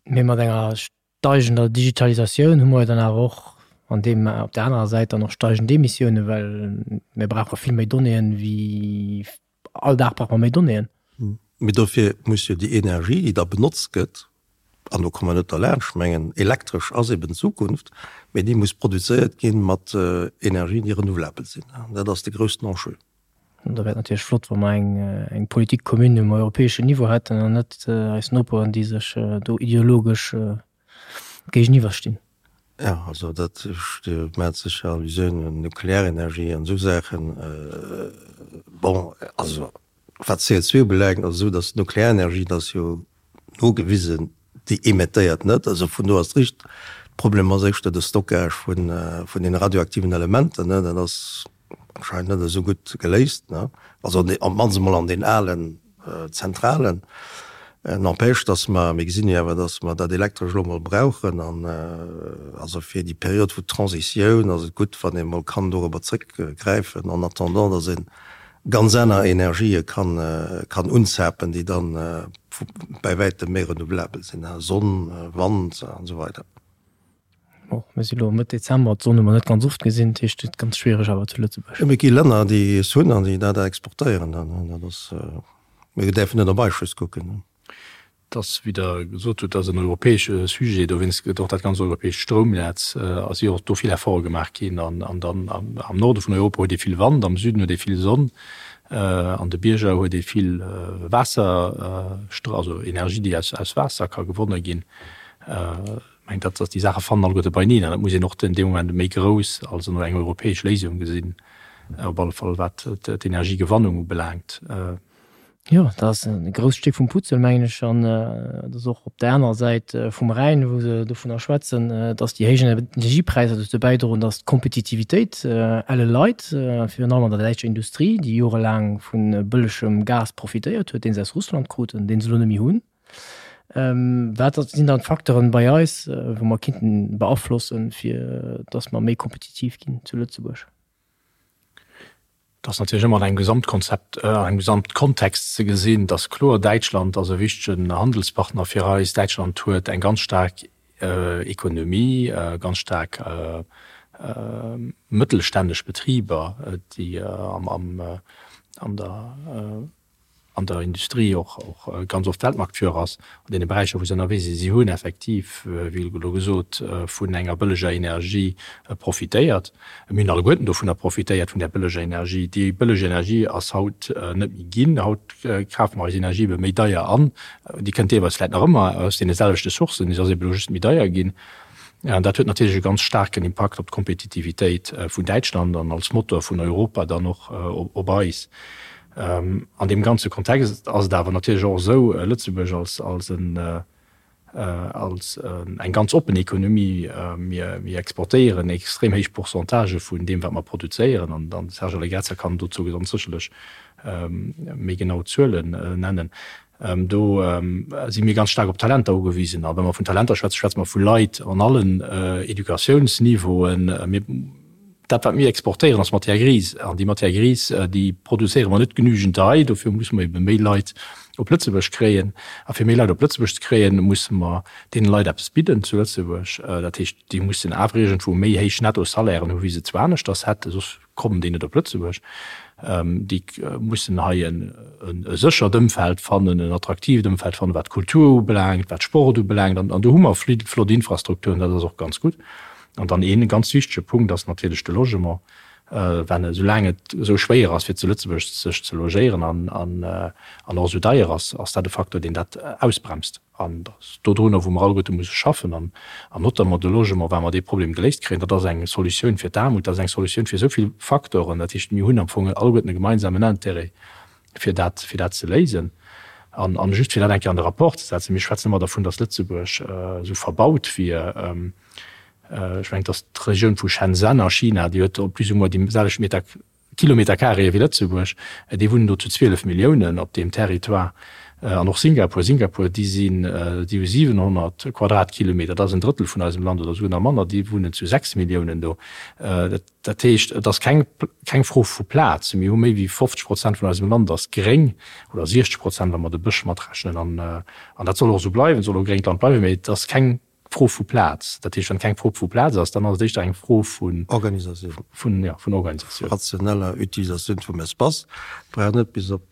Mee mat enger steigender Digitalisatioun hu mer jo dann awer och an deem, op där anerer Säit dann och steigend Emissiounen, well mir brauche vill méi Donnéeën wéi, all Dag brauche mer méi Donnéeën. Mee dofir muss jo déi Energie, déi da benotzt gëtt, an do komme mer net derlaanscht, ech mengen elektresch ass eben d'Zukunft, mee déi muss produzéiert gi mat Energien, déi renouvelabel sinn. Dat ass de groussen Enjeu. An da wär et natierlech flott, wa mer eng, eng Politique commune um europäeschen Niveau hätten an net eis Noperen, déi sech do ideologesch géigeniwwer stinn. Jo, also dat, Dir maacht sécher Allusioun un Nuklearenergie an esou Saachen. Bon, also wat CO2 ubelaangt, ass et esou, datt d'Nuklearenergie, dat ass jo nogewisen, déi emettéiert net. Also vun do ass et richteg. De Problem ass éischter de Stockage vun deene radioaktiven Elementer, dat ass anscheinend net esou gutt geléist, ne? Also op d'mannst emol an den alen Zentralen. N'empêche, dass mer, mir gesinn jo awer, dass mer dat Elektresch elo emol brauchen an also fir déi Period vu Transitioun ass et gutt, wann ee mol kann dorobber zrëckgräifen en attendant, dass ee ganz aner Energië kann, kann unzapen, déi dann bäi wäitem méi renouvelabel sinn, Sonn, Wand an esou weider. Bon, mir si lo Mëtt Dezember, d'Sonn hu mer net ganz oft gesinn, dat heescht et ganz schwiereg awer zu Lëtzebuerg. Jo, mee et gi Länner, déi es hunn an déi dat exportéieren dann. Dat ass, mir däerfen net op eis just kucken. Et ass, wéi Der gesot hutt, ass en europäesche Sujet, dowéinst gëtt och dat ganz europäescht Stroumnetz, a si och do vill Efforte gemaach ginn. An dann am Norde vun Europa huet ee vill Wand, am Süden huet ee vill Sonn, an de Bierger huet ee vill Waasser, also Energie, déi aus Waasser ka gewonne ginn. Mengt dat, dass déi Saache fannen alleguerte beineen an et muss een och den dee Moment méi grouss als elo eng europäesch Léisung gesinn, op alle Fall wat d'Energiegewannung ubelaangt. Jo, dat ass e grousst Stéck vum Puzzel, mengen ech. An et ass och op där anerer Säit vum Rhäin, wou se dovunner schwätzen, dass déi héich Energiepräisser dozou bäidroen, dass d'Kompetitivitéit elle leit, virun allem an der däitscher Industrie, déi jorelaang vu bëllegem Gas profitéiert huet, dee se aus Russland kruten, dee se elo net méi hunn. Wat sinn dann d'Facteuren bei eis, wou mer kinnten beaflossen, fir dass mer méi kompetitiv ginn zu Lëtzebuerg? Et ass natierlech ëmmer an engem Gesamtkonzept, an engem Gesamtkontext ze gesinn. Et ass kloer, Däitschland ass e wichtegen Handelspartner fir eis. Däitschland huet eng ganz staark Ekonomie, ganz staark mëttelstänneg Betriber, déi an der an der Industrie och ganz oft Weltmarktführer ass an deene Beräicher, wou se ënnerwee sinn. Si hunn effektiv, wéi elo gesot, vun enger bëlleger Energie profitéiert. Mir hunn alleguerten dovunner profitéiert, vun där bëlleger Energie. Déi bëlleg Energie ass haut net méi ginn. Haut kafe mer eis Energie ebe méi deier an. Déi kënnt deelweis vläicht nach ëmmer aus deene selwechte Sourcen, se ass ebe elo just méi deier ginn. An dat huet natierlech e ganz staarken Impakt op d'Kompetitivitéit vun Däitschland an als Motor vun Europa dann och op eis. An deem ganze Kontext ass et awer natierlech och esou, Lëtzebuerg als, als en, als eng ganz oppen Ekonomie, mir, mir exportéieren extrem héich Pourcentagë vun deem, wat mer produzéieren, an de Serge Allegrezza kann dozou ganz sécherlech méi genau Zuelen nennen, do si mir ganz staark op Talenter ugewisen. A wa mer vun Talenter schwätzen, schwätze mer vu Leit an allen Educatiounsniveauen. Mir. Dat, wat mir exportéieren, ass Matière grise. An déi Matière grise, déi produzéiere mer net genügend hei. Dofir musse mer ebe méi Leit op Lëtzebuerg kréien. A fir méi Leit op Lëtzebuerg ze kréien, musse mer deene Leit eppes bidden zu Lëtzebuerg. Dat heescht, déi mussen awer iergendwou méi héich Nettosalairen hu wéi se zu aneschters hätten, soss kommen déi net op Lëtzebuerg. Déi mussen hei e séchert Ëmfeld fannen, en attraktiivt Ëmfeld fannen, wat d'Kultur ubelaangt, wat Sport ubelaangt. An do hu mer flott Infrastrukturen, dat ass och ganz gutt. An dann ee ganz wichtege Punkt ass natierlech de Logement. Well esoulaang et esou schwéier ass, fir zu Lëtzebuerg sech ze logéieren an an och esou deier ass, ass dat e Facteur, deen dat ausbremst. An dat ass dodrunner, wou mer alleguerte musse schaffen an notamment de Logement, wa mer dee Problem geléist kréien. Dat ass eng Solutioun fir d'Aarmut, dat ass eng Solutioun fir esou vill Facteuren. Dat heescht, mir hunn am Fong alleguerten e gemeinsamen Intérêt, fir dat, fir dat ze léisen. An, an just fir dat eng Kéier an de Rapport ze setzen, Mir schwätzen ëmmer dervun, datt Lëtzebuerg esou verbaut wier. Ech mengen, datt d'Regioun vu Shenzhen a China, déi huet plus ou moins déi selwecht Meter, Kilometer carré wéi Lëtzebuerg, déi wunnen do zu 12 Milliounen op deem Territoire. An och Singapur, Singapur, déi sinn, déi hu 700 Quadratkilometer, dat ass en Drëttel vun eisem Land oder esouguer nach manner, déi wunnen zu 6 Milliounen do. Dat. Dat heescht, et ass keng, keng Fro vu Plaz. Mir hu méi wéi 50 Prozent vun eisem Land ass gréng, oder 60 Prozent, wa mer de Bësch matrechnen. An, an dat soll och esou bleiwen, soll och e gréngt Land bleiwen. Mee et ass keng Fro vu Plaz. Dat heescht, wann et keng Fro vu Plaz ass, dann ass et éischter eng Fro vun. Organisatioun. Vun, jo, vun Organisatioun. Rationeller Utilisatioun vum Espace. Et brauch net bis op,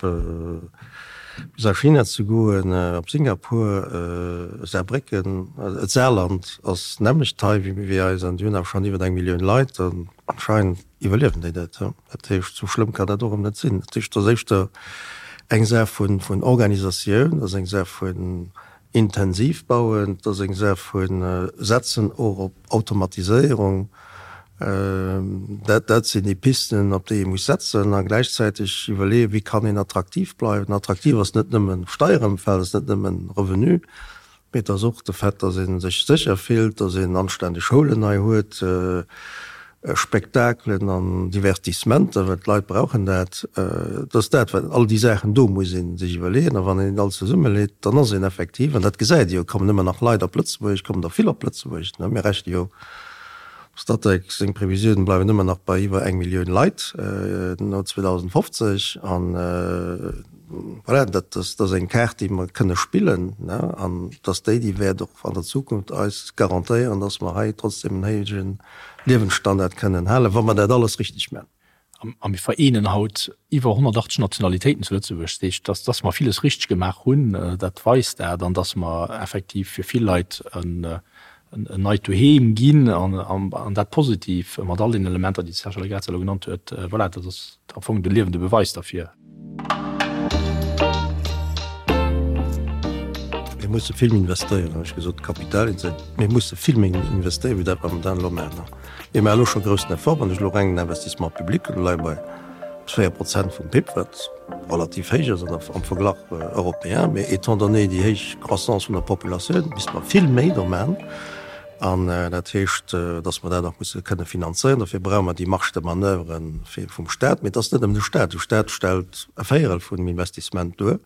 bis a China ze goen, op Singapur, Saarbrécken, d'Saarland ass d'nämmlecht hei wéi eis an déi hunn awer schonn iwwer eng Millioun Leit an anscheinend iwwerliewen déi dat. Dat heescht, esou schlëmm kann dat och erëm net sinn. Dat heescht, et ass éischter eng Saach vun Organisatioun, et ass eng Saach vun. Intensiv bauen, et ass eng Saach vu setzen och op Automatiséierung. Dat, dat sinn déi Pisten, op déi ee muss setzen a gläichzäiteg iwwerleeën, wéi kann een attraktiv bleiwen. Attraktiv ass net nëmmen Steierëmfeld, ass net nëmmen Revenu, mee et ass och de Fait, dass ee sech sécher fillt, dass een anständeg Schoulen hei huet, Spektakelen an Divertissementer, well d'Leit brauchen dat. Et ass dat, wat all déi Saachen do muss ee sech iwwerleeën. A wann een dat alles zesummeleet, dann ass een effektiv, an dat gesäit ee jo, et kommen ëmmer nach Leit op Lëtzebuerg, et kommen der vill op Lëtzebuerg, mir rechne jo, Statec seng Previsiounen bleiwen ëmmer nach bei iwwer eng Millioun Leit no 2050. An voilà, dat ass eng Kaart, déi mer kënne spillen, an dass déi, déi wäert och an der Zukunft eis garantéieren, dass mer hei trotzdem en héije Liewensstandard kënnen halen, wa mer dat alles richteg man. A mir vereenen haut iwwer 180 Nationalitéiten zu Lëtzebuerg. Dat heescht, dass, dass mer villes richteg gemaach hunn, dat weist dat. An dass mer effektiv fir vill Leit en neit Doheem ginn, an dat positiv, mat all deenen Elementer, déi de Serge Allegrezza elo genannt huet. Voilà, dat ass am Fong de liewende Beweis derfir. Mir musse vill méi investéieren, hunn ech gesot, Kapital, mir musse vill méi investéieren, wéi dat mer momentan elo maachen. Mir maache elo scho groussen Effort, wann ech elo reng den Investissement public hunn, do leie mer bei 4 Prozent vum PIB, wat relativ héich ass am Verglach européen. Mee étant donné déi héich Croissance vun der Populatioun, misste mer vill méi do maachen. An dat heescht, datt mer dat och musse kënne finanzéieren. Dofir brauche mer déi Marge de manoeuvre vum Stat. Mee et ass net nëmmen de Stat. De Stat stellt e Véierel vun dem Investissement duer.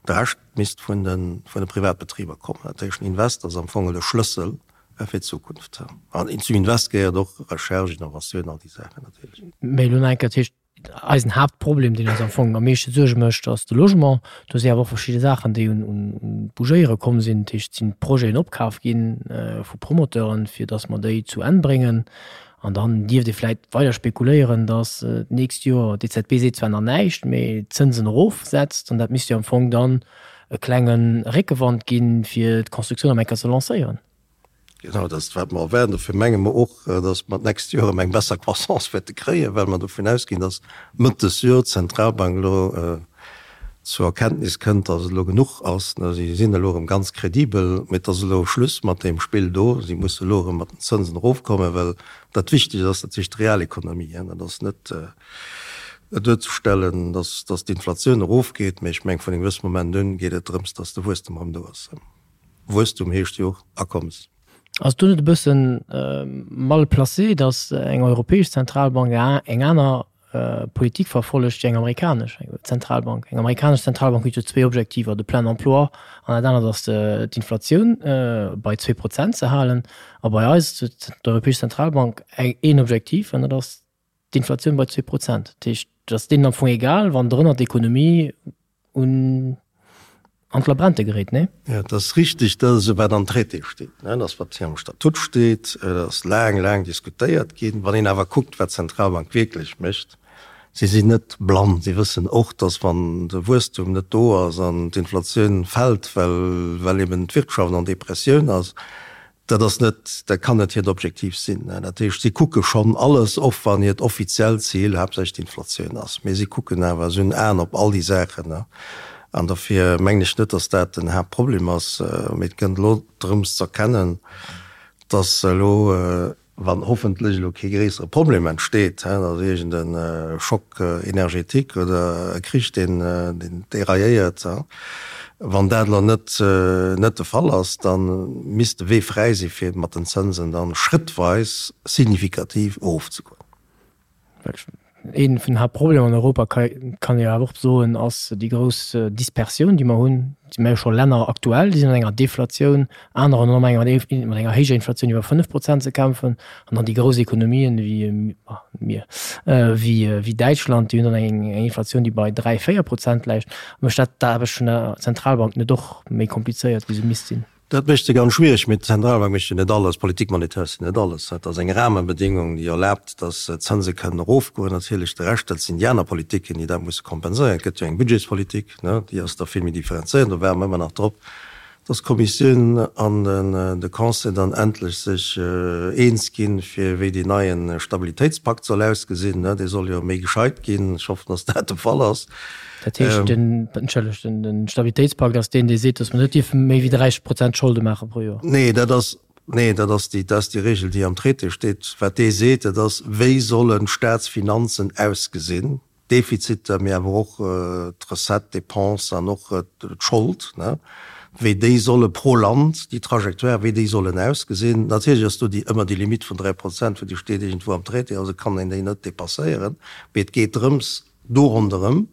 De Rescht misst vun de Privatbetriber kommen. Dat heescht, den Invest ass am Fong de Schlëssel fir d'Zukunft. An zum Invest gehéiert och Recherche, Innovatioun, all déi Saachen natierlech. Mee elo nach eng Kéier, dat heescht, Eisen Haaptproblem, deen eis am Fong am meeschte Suerge mécht, ass de Logement. Do si awer och verschidde Saachen, déi un d'Bougéiere komm sinn. Dat heescht, et sinn Projeten opkaf gi vu Promoteuren, fir datt mer déi zu Enn bréngen. An dann dierft ee vläicht weider spekuléieren, datt d'nächst Joer, d'EZB seet zwar nach näischt, mee d'Zënsen erofsetzt. An dat misst jo am Fong dann e klenge Réckewand ginn, fir d'Constructioun erëm eng Kéier ze lancéieren. Genau, dat ass wat mer erwaarden. Dofir menge mer och, datt mer d'nächst Joer erëm eng besser Croissance wäerte kréien, well mer dovun ausginn, datt Mëtt des Joer d'Zentralbank elo zur Erkenntnis kënnt, datt et elo genuch ass. Si sinn elo erëm ganz kredibel, mee et ass elo Schluss mat deem Spill do. Si musse elo erëm mat den Zënsen erofkommen, well dat Wichtegst ass natierlech d'Realekonomie. Dat ass net duerzestellen, datt d'Inflatioun erofgeet, mee ech mengen, vun engem gewësse Moment un geet et drëms, datt de Wuesstem erëm do ass. Wuesstum heescht jo och Akommes. Ass do net e bëssen mal placé, datt eng europäesch Zentralbank eng aner Politik verfollegt wéi eng amerikanesch Zentralbank? Eng amerikanesch Zentralbank huet jo zwéi Objektiver, de plein emploi an dat anert ass d'Inflatioun bei 2 Prozent ze halen. A bei eis huet d'Europäesch Zentralbank een Objektiv an dat ass d'Inflatioun bei 2 Prozent. Dat heescht, et ass deenen am Fong egal, wann drënner d'Ekonomie un an d'Labrente geréit, nee? Jo, et ass richtig, dat ass esou wat am Traité steet, ne, dat ass wat hei am Statut steet, dat ass laang, laang diskutéiert ginn. Wann een awer kuckt, wat d'Zentralbank wierklech mécht, si sinn net blann, si wëssen och, dass wann de Wuesstum net do ass an d'Inflatioun fält, well, well eben d'Wirtschaft an Depressioun ass, Dat ass net, dat kann net hiert Objektiv sinn. Dat heescht, si kucke schonn alles, och wann hiert offiziellt Zil haaptsächlech d'Inflatioun ass. Mee si kucken awer, si hunn Aen op all déi Saachen. An dofir mengen ech net, datt dat den Haaptproblem ass. Mee et gëtt elo drëms z'erkennen, datt elo, wann hoffentlech elo kee gréissere Problem entsteet, datt iergend e Choc énergétique oder e Krich, deen dérailléiert, wann dat elo net net de Fall ass, da misst de Wee fräi si fir mat den Zënsen dann schrëttweis signifikativ erofzegoen. Ee vun den Haaptproblemer an Europa, kann ee jo awer och soen, ass déi grouss Dispersioun, déi mer hunn. Et si jo scho Länner aktuell, déi sinn an enger Deflatioun, anerer hunn mat enger héijer Inflatioun iwwer 5 Prozent ze kämpfen. An dann déi grouss Ekonomien wéi mir, wéi Däitschland, déi hunn dann eng Inflatioun, déi bei 3, 4 Prozent läit. Mécht dat d'Aarbecht vun der Zentralbank net och méi komplizéiert, wéi se misst sinn? Dat mécht se ganz schwiereg, mee d'Zentralbank mécht jo net alles, d'Politique monétaire ass jo net alles. Dat ass eng Rahmenbedingung, déi erlaabt, datt d'Zënse kënnen erofgoen. Natierlech de Rescht, dat sinn déi aner Politiken, déi dat musse kompenséieren. Et gëtt jo eng Budgetspolitik, ne, déi ass da vill méi differenzéiert, do waarde mer ëmmer nach drop. Dass d'Kommissioun an de Conseil dann endlech sech eens ginn, fir wéi deen neie Stabilitéitspakt soll ausgesinn. Dee soll jo méi gescheit ginn. Ech hoffen, dass dat de Fall ass. Dat heescht, den, entschëllegt, den Stabilitéitspakt ass deen, dee seet, dass mer net dierfe méi wéi 30 Prozent Scholde maache pro Joer? Nee, dat ass, nee, dat ass déi, dat ass déi Regel, déi am Traité steet. Wat dee seet, dat ass, wéi sollen d'Staatsfinanzen ausgesinn? D'Defiziter, mee awer och d'Recettes, d'Dépenses an och d'Schold, wéi déi solle pro Land, déi Trajectoire, wéi déi sollen ausgesinn. Natierlech ass do déi ëmmer déi Limite vun 3 Prozent, well déi steet iergendwou am Traité, also kann een déi net dépasséieren. Mee et geet drëms, do ronderëm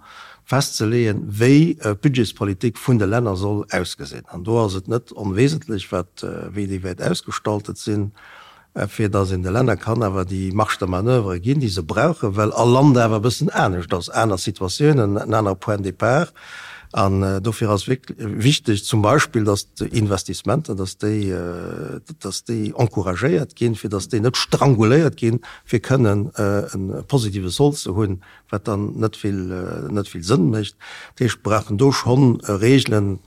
festzeleeën, wéi d'Budgetspolitik vun de Länner soll ausgesinn. An do ass et net onwesentlech, wat, wéi déi wäert ausgestaltet sinn. fir datt een de Länner kann awer déi Marge de manoeuvre ginn, déi se brauchen, well all Land awer e bëssen anescht ass, aner Situatiounen, en anere Point de départ. An dofir ass wichteg zum Beispill, datt d'Investissementer, datt déi, datt déi encouragéiert ginn, fir datt déi net stranguléiert ginn, fir kënnen e positive Sold ze hunn, wat dann net vill, net vill Sënn mécht. Dat heescht, mir brauchen do schonn Regelen,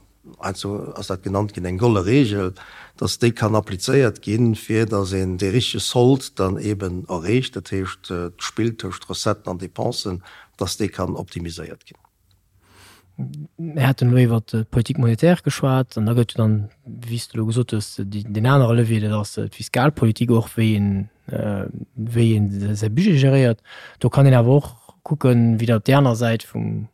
Heiansdo ass dat genannt ginn, eng golle Regel, dass déi kann applizéiert ginn, fir dass een dee richtege Sold dann eeben erreecht, dat heescht d'Spill tëscht Recetten an Dépensen, dass dee kann optimiséiert ginn. Mir haten elo iwwert d'Politique monétaire geschwat an da gëtt jo dann, wéi s de elo gesot hues, deen anere Levier, dat ass d'Fiskalpolitik och, wéi een, wéi een säi Budget geréiert. Do kann een awer och kucken, wéi dat op där aner Säit vum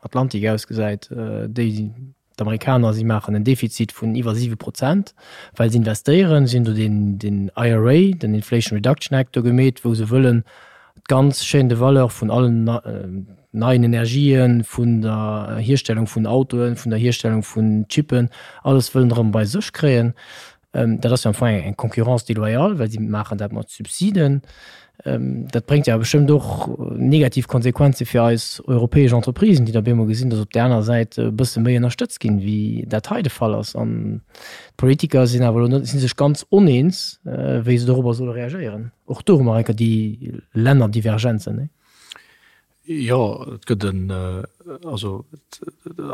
Atlantik ausgesäit, déi d'Amerikaner, si maachen en Defizit vun iwwer 7 Prozent, well se investéieren. Si hunn do deen, deen IRA, den Inflation Reduction Act do gemeet, wou se wëllen d'ganz Chaîne de valeur vun allen neien Energien, vun der Hierstellung vun Autoen, vun der Hierstellung vun Chippen, alles wëllen erëm bei sech kréien. Dat ass jo am Fong eng Concurrence déloyale, well si maachen dat mat Subsiden. Dat bréngt jo awer bestëmmt och negativ Konsequenze fir eis europäesch Entreprisen, déi da op eemol gesinn, datt op där aner Säit e bësse méi ënnerstëtzt ginn, wéi dat hei de Fall ass. An d'Politiker sinn awer elo net, si sech ganz oneens, wéi se dorobber solle reagéieren. Och do hu mer enker déi Lännerdivergenzen, nee? Jo, et gëtt en, also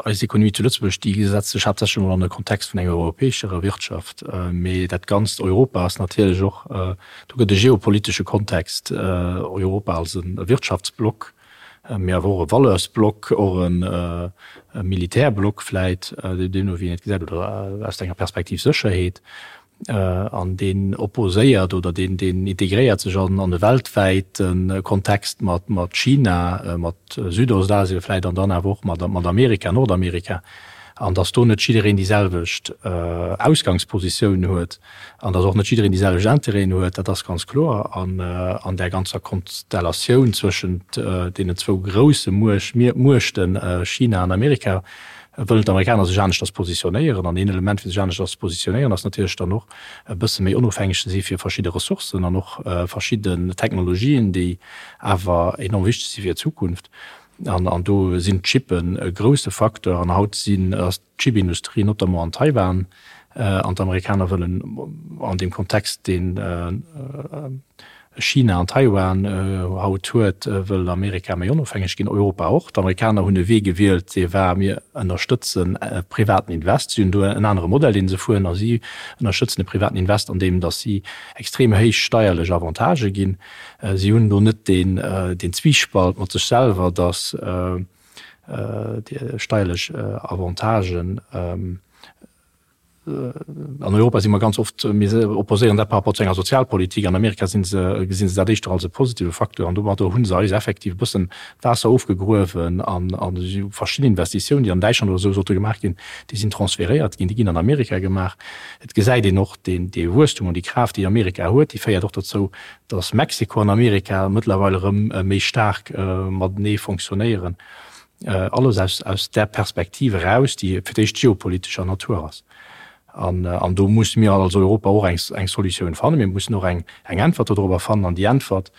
eis Ekonomie zu Lëtzebuerg, déi setzt sech haaptsächlech emol an de Kontext vun enger europäescherer Wirtschaft. Mee dat ganzt Europa ass natierlech och, do gëtt e geopolitesche Kontext, Europa als e Wirtschaftsblock, mee awer och e Valeursblock, och e Militärblock vläit, deemno wéi een et gesäit, oder aus enger Perspektiv Sécherheet. An deen opposéiert oder deen integréiert sech an e weltwäite Kontext mat China, mat Südostasien vläicht an dann awer och mat Amerika, Nordamerika. An datt do net jiddereen déi selwecht Ausgangspositioun huet an datt och net jiddereen déi selwecht Intérêten huet, dat ass ganz kloer. An an där ganzer Konstellatioun zwëschent deenen zwou grousse Muechten, China an Amerika, wëllen d'Amerikaner sech aneschters positionéieren. An een Element fir sech aneschters ze positionéieren ass natierlech dann och e bësse méi onofhängeg ze si fir verschidde Ressourcen an och verschidden Technologien, déi awer enorm wichteg si fir d'Zukunft. An an do sinn d'Chippen e grousse Facteur. An haut sinn, ass d'Chipindustrie notamment an Taiwan, an d'Amerikaner wëllen an deem Kontext, deen China an Taiwan haut huet, wëll Amerika méi onofhängeg ginn, Europa och. D'Amerikaner hunn e Wee gewielt, dee war, mir ënnerstëtzen e privaten Invest. Si hunn do en anere Modell, dee se fueren, a si ënnerstëtzen e privaten Invest, andeem datt si extrem héich steierlech Avantagë ginn. Si hunn do net deen Zwiespalt mat sech selwer, datt steierlech Avantagen, An Europa si mer ganz oft, mir opposéieren dat par rapport zu enger Sozialpolitik. An Amerika si se, gesi se dat éischter als e positive Facteur. An domadder hu se eis effektiv e bëssen d'Waasser ofgegruewen an verschidden Investitiounen, déi an Däitschland oder esou sollte gemaach ginn, déi sinn transferéiert ginn, déi ginn an Amerika gemaach. Et gesäit een och deen, dee Wuesstum an déi Kraaft, déi Amerika huet, déi féiert och dozou, datt Mexiko an Amerika mëttlerweil erëm méi staark matenee fonctionnéieren. Alles aus, aus där Perspektiv eraus, déi fir d'éischt geopolitescher Natur ass. An, an do musse mir als Europa och eng, eng Solutioun fannen. Mir mussen och eng, eng Äntwert dodrobber fannen. An déi Äntwert,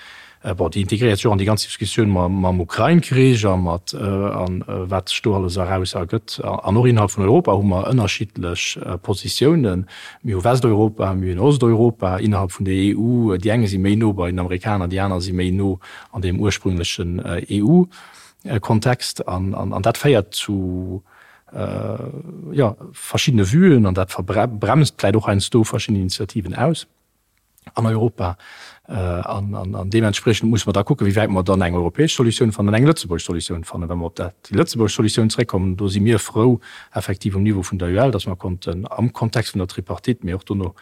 bon, déi integréiert sech och an déi ganz Diskussioun mam, mam Ukrain-Krich a mat, an wat sech do alles eraus ergëtt. An och innerhalb vun Europa hu mer ënnerschiddlech Positiounen. Mir hu Westeuropa, mir hunn Osteuropa innerhalb vun der EU. Déi eng si méi no bei den Amerikaner, déi aner si méi no an deem ursprünglechen EU. Kontext an dat féiert zu. Jo, verschiddene Vuen, an dat bremst vläicht och heiansdo verschidden Initiativen aus an Europa. An deementspriechend musse mer da kucken, wéi wäit mer dann eng europäesch Solutioun fannen an eng lëtzebuergesch Solutioun fannen. Wa mer op dat, déi lëtzebuergesch Solutioun zréckkommen, do si mir frou effektiv um Niveau vun der UEL, datt mer konnten am Kontext vun der Tripartite, mee och dono,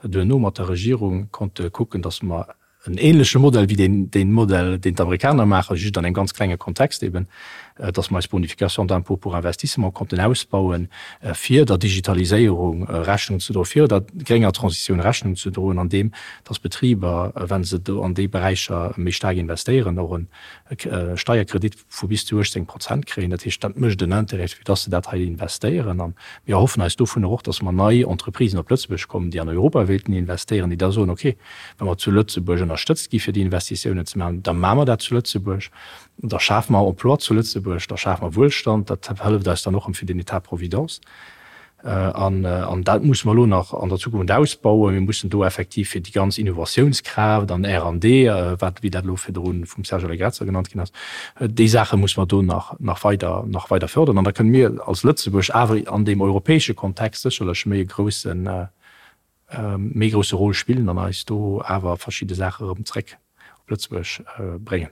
duerno mat der Regierung konnte kucken, datt mer en ähnleche Modell wéi deen, deen Modell, deen d'Amerikaner maachen, just an engem ganz klenge Kontext eben, dass mer eis Bonification d'impôt pour investissement konnten ausbauen, fir der Digitaliséierung Rechnung ze droen, fir der grénger Transitioun Rechnung ze droen, andeem dass Betriber, wa se do an déi Beräicher méi staark investéieren, och e Steierkredit vu bis zu 18 Prozent kréien. Dat heescht, dat mécht en Intérêt, fir dass se dat hei investéieren. A mir erhoffen eis dovunner och, dass mer nei Entreprisen op Lëtzebuerg kommen, déi an Europa wéilten investéieren, déi da soen, okay, Wa mer zu Lëtzebuerg ënnerstëtzt gi fir déi Investitiounen ze maachen, da maache mer dat zu Lëtzebuerg, da schafe mer Emploi zu Lëtzebuerg, da schafe mer Wuelstand, dat hëlleft eis dann och erëm fir den État providence. An dat musse mer elo nach an der Zukunft ausbauen. Mir mussen do effektiv fir déi ganz Innovatiounskraaft an R an D, wat, wéi dat elo virdru vum Serge Allegrezza genannt ginn ass, déi Saache musse mer do nach, nach weider, nach weider fördern. An da kënne mir als Lëtzebuerg awer an deem europäesche Kontext sécherlech méi e groussen, méi grousse Rôle spillen an eis do awer verschidde Saache erëm zréck op Lëtzebuerg bréngen.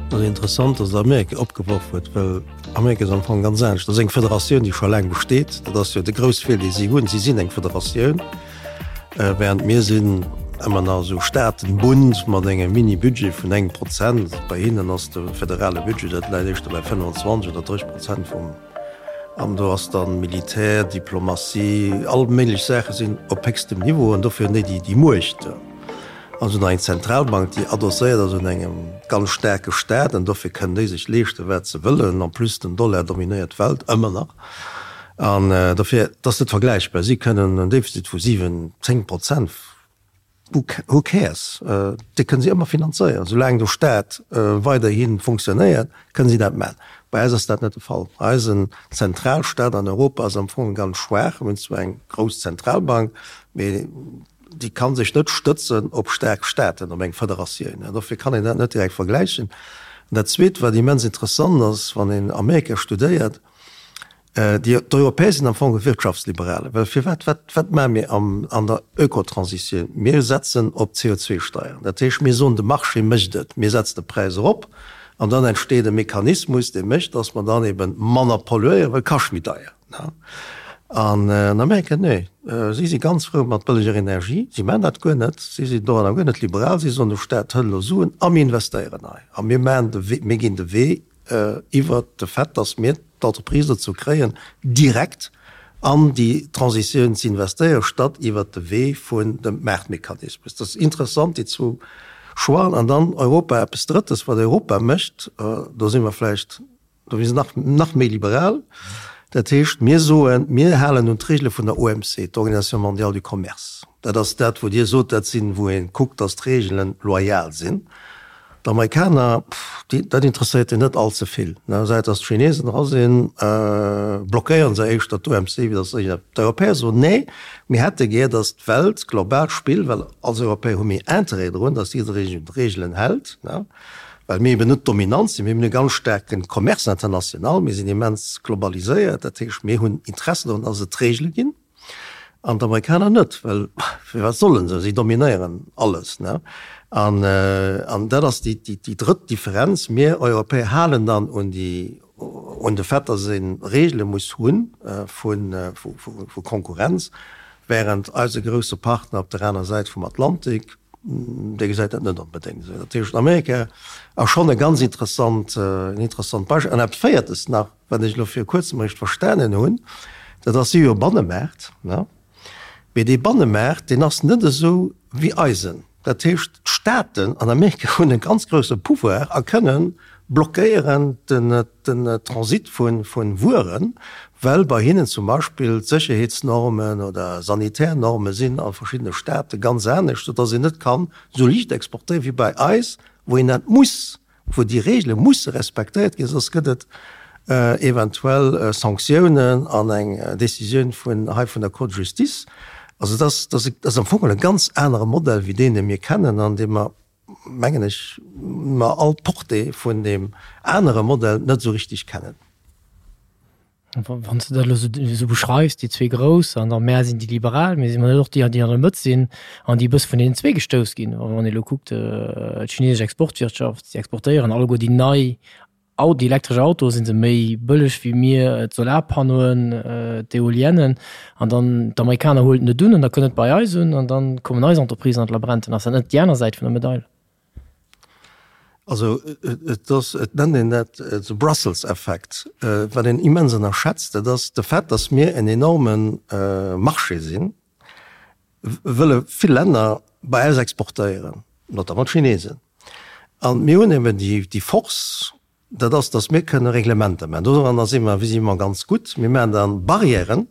Et ass interessant, dass Der Amerika opgeworf huet, well Amerika ass am Fong ganz anescht. Dat ass eng Federatioun, déi scho laang besteet. Dat ass jo de grouss Fehler, dee si hunn. Si sinn eng Federatioun, während mir sinn ëmmer nach esou Staatenbund mat engem Mini-Budget vun engem Prozent. Bei hinnen ass de federale Budget, dat läit éischter bei 25 oder 30 Prozent vum. An do ass dann Militär, Diplomatie, all méiglech Saache sinn op héchstem Niveau an dofir hunn déi déi Muecht. An se hunn nach eng Zentralbank, déi adosséiert ass un engem ganz staarke Staat an dofir kënnen déi sech leeschten, wat se wëllen. En plus den Dollar dominéiert d'Welt ëmmer nach an dofir, et ass net vergläichbar. Si kënnen en Defizit vu 7, 10 Prozent Who cares? Déi kënne si ëmmer finanzéieren. Soulaang de Staat weiderhi funktionéiert, kënne si dat maachen. Bei eis ass dat net de Fall. Eisen Zentralstaat an Europa ass am Fong ganz schwaach. Mir hunn zwar eng grouss Zentralbank, mee déi ka sech net stëtzen op staark Staaten, op eng Federatioun. Dofir kann een dat net direkt vergläichen. An dat Zweet, wat immens interessant ass, wann een Amerika studéiert, Déi, d'Europäer sinn am Fong Wirtschaftsliberale, well firwat, wat, wat maache mir am, an der Ökotransitioun? Mir setzen op d'CO2-Steieren. Dat heescht, mir soen, de Marché mécht et, mir setzen de Präis erop an dann entsteet e Mechanismus, dee mécht, datt mer dann ebe manner polluéieren, well et kascht méi deier. An an Amerika, nee, si si ganz frou mat bëlleger Energie, si maachen dat guer net, si sinn doranner guer net liberal, si soen, de Staat hëlt elo Suen a mir investéieren hei a mir maachen de Wee, mir ginn de Wee iwwert de Fait, dass mir d'Entreprise dozou kréien, direkt an déi Transitioun ze investéieren, statt iwwert de Wee vun dem Maartmechanismus. Dat ass interessant, déi zwou Choixen. An dann Europa, eppes Drëttes, wat Europa mécht, do si mer vläicht, do si se nach, nach méi liberal. Dat heescht, mir soen, mir halen un d'Regele vun der OMC, d'Organisation mondiale du commerce. Dat ass dat, wou Dir sot, dat sinn, wou ee kuckt, dass d'Regelen loyal sinn. D'Amerikaner, déi, dat interesséiert déi net all ze vill. Säit datt d'Chinesen dra sinn, blockéieren se éischter d'OMC, wéi datt se iergend. D'Europäer soen, nee, mir hätte gär, datt d'Welt global spillt, well als Europäer hu mir Interêt drun, datt jidderee sech un d'Reegelen hält, well mir eben net dominant sinn. Mir hunn e ganz staarke Commerce international, mir sinn immens globaliséiert, dat heescht, mir hunn Interesse drun, datt et Reegele ginn. An d'Amerikaner net, well firwat sollen se? Si dominéieren alles. Ne? An, an dat ass déi, déi, déi drëtt Differenz. Mir Europäer halen dann un déi, un de Fait, datt ee Regele muss hu vu, vu, vu Konkurrenz, während eise grousse Partner op der aner Säit vum Atlantik, dee gesäit dat net onbedéngt esou. Dat heescht, Amerika ass schonn e ganz interessant, en interessant Beispill. An eppes Véiertes nach, Wat ech elo viru kuerzem eréischt verstanen hunn, dat ass, si hu jo e Bannemaart, ne? Mee dee Bannemaart, deen ass net esou wéi eisen. Dat heescht, d'Staaten an Amerika hunn e ganz grousse Pouvoir a kënnen blockéieren den, den Transit vu, vu Wueren, well bei hinnen zum Beispill d'Sécherheetsnormen oder sanitär Norme sinn a verschiddene Staate ganz anescht, soudass een net kann esou liicht exportéieren wéi bei eis, wou een dat muss. wou déi Regele musse respektéiert ginn, soss gëtt et eventuell Sanktiounen an eng Décisioun vun hei vun der Cour de justice. Also dat ass, dat ass am Fong e ganz anere Modell wéi deen, dee mir kennen an dee mer. mengen ech, mer all d'Portée vun deem anere Modell net esou richtig kennen. Wann s de dat elo esou beschreifs, déi zwee Grouss an da mär sinn déi Liberal, mee si mer net och déi, déi an der Mëtt sinn an déi e bësse vun deenen zwee gestouss ginn? Wann ee elo kuckt, d'chinesesch Exportwirtschaft, déi exportéieren alleguer déi nei déi elektresch Autoe si se méi bëlleg wéi mir, d'Solarpannoen, d'Eoliennen an dann d'Amerikaner huelen et net un an da kënnt et bei eis un an da kommen eis Entreprisen an d'Labrenten. Ass dat net déi aner Säit vun der Medail? Also et ass, et nennt een dat the Brussels Effect. Wat een immens ënnerschätzt, dat ass de Fait, datt mir en enorme Marché sinn, wëlle vill Länner bei eis exportéieren, notamment d'Chinesen. A mir hunn eben déi Force, Dat ass, dass mir kënne Reglementer maachen. Doranner si mer visiblement ganz gutt. Mir maachen da Barrièren,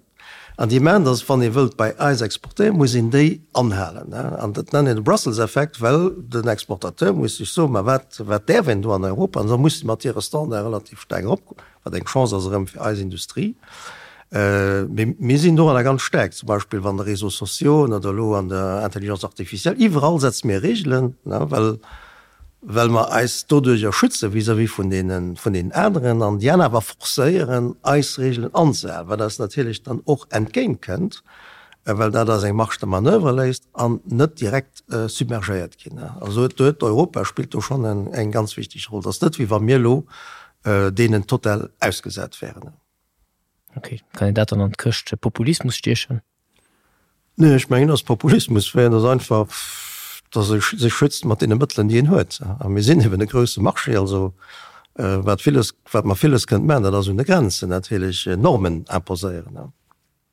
an déi maachen, dass, wann ee wëllt bei eis exportéieren, muss een déi anhalen. An dat nennen een de Brussels-Effekt, well den Exportateur muss sech soen, ma wat, wat däerf een do an Europa? An da muss se mat hire Standarde relativ staark eropgoen, wat eng Chance ass erëm fir eis Industrie. Mee mir sinn doranner ganz staark, zum Beispill an de Réseaux sociaux oder elo an der Intelligence artificielle. Iwwerall setze mir Regelen, well well mer eis doduerjer schütze vis-à-vis vun deenen, vun deenen aneren an déi aner awer forcéieren, eis Regelen anzehalen, wat eis natierlech dann och entgéint kënnt, well dat eis eng Marge de manoeuvre léisst an net direkt submergéiert ginn. Also do huet Europa spillt do schonn eng ganz wichteg Roll. Et ass net, wéi wa mir elo deenen total ausgesat wären. Ok, kann een dat dann an d'Këscht Populismus stiechen? Nee, ech mengen, dass Populismus wär, et ass einfach, dass e sech schützt mat deene Mëttelen, déi en huet. A mir sinn eben e grousse Marché, also wat villes, wat mer villes kënnt maachen, dat ass un de Grenzen natierlech Normen imposéieren.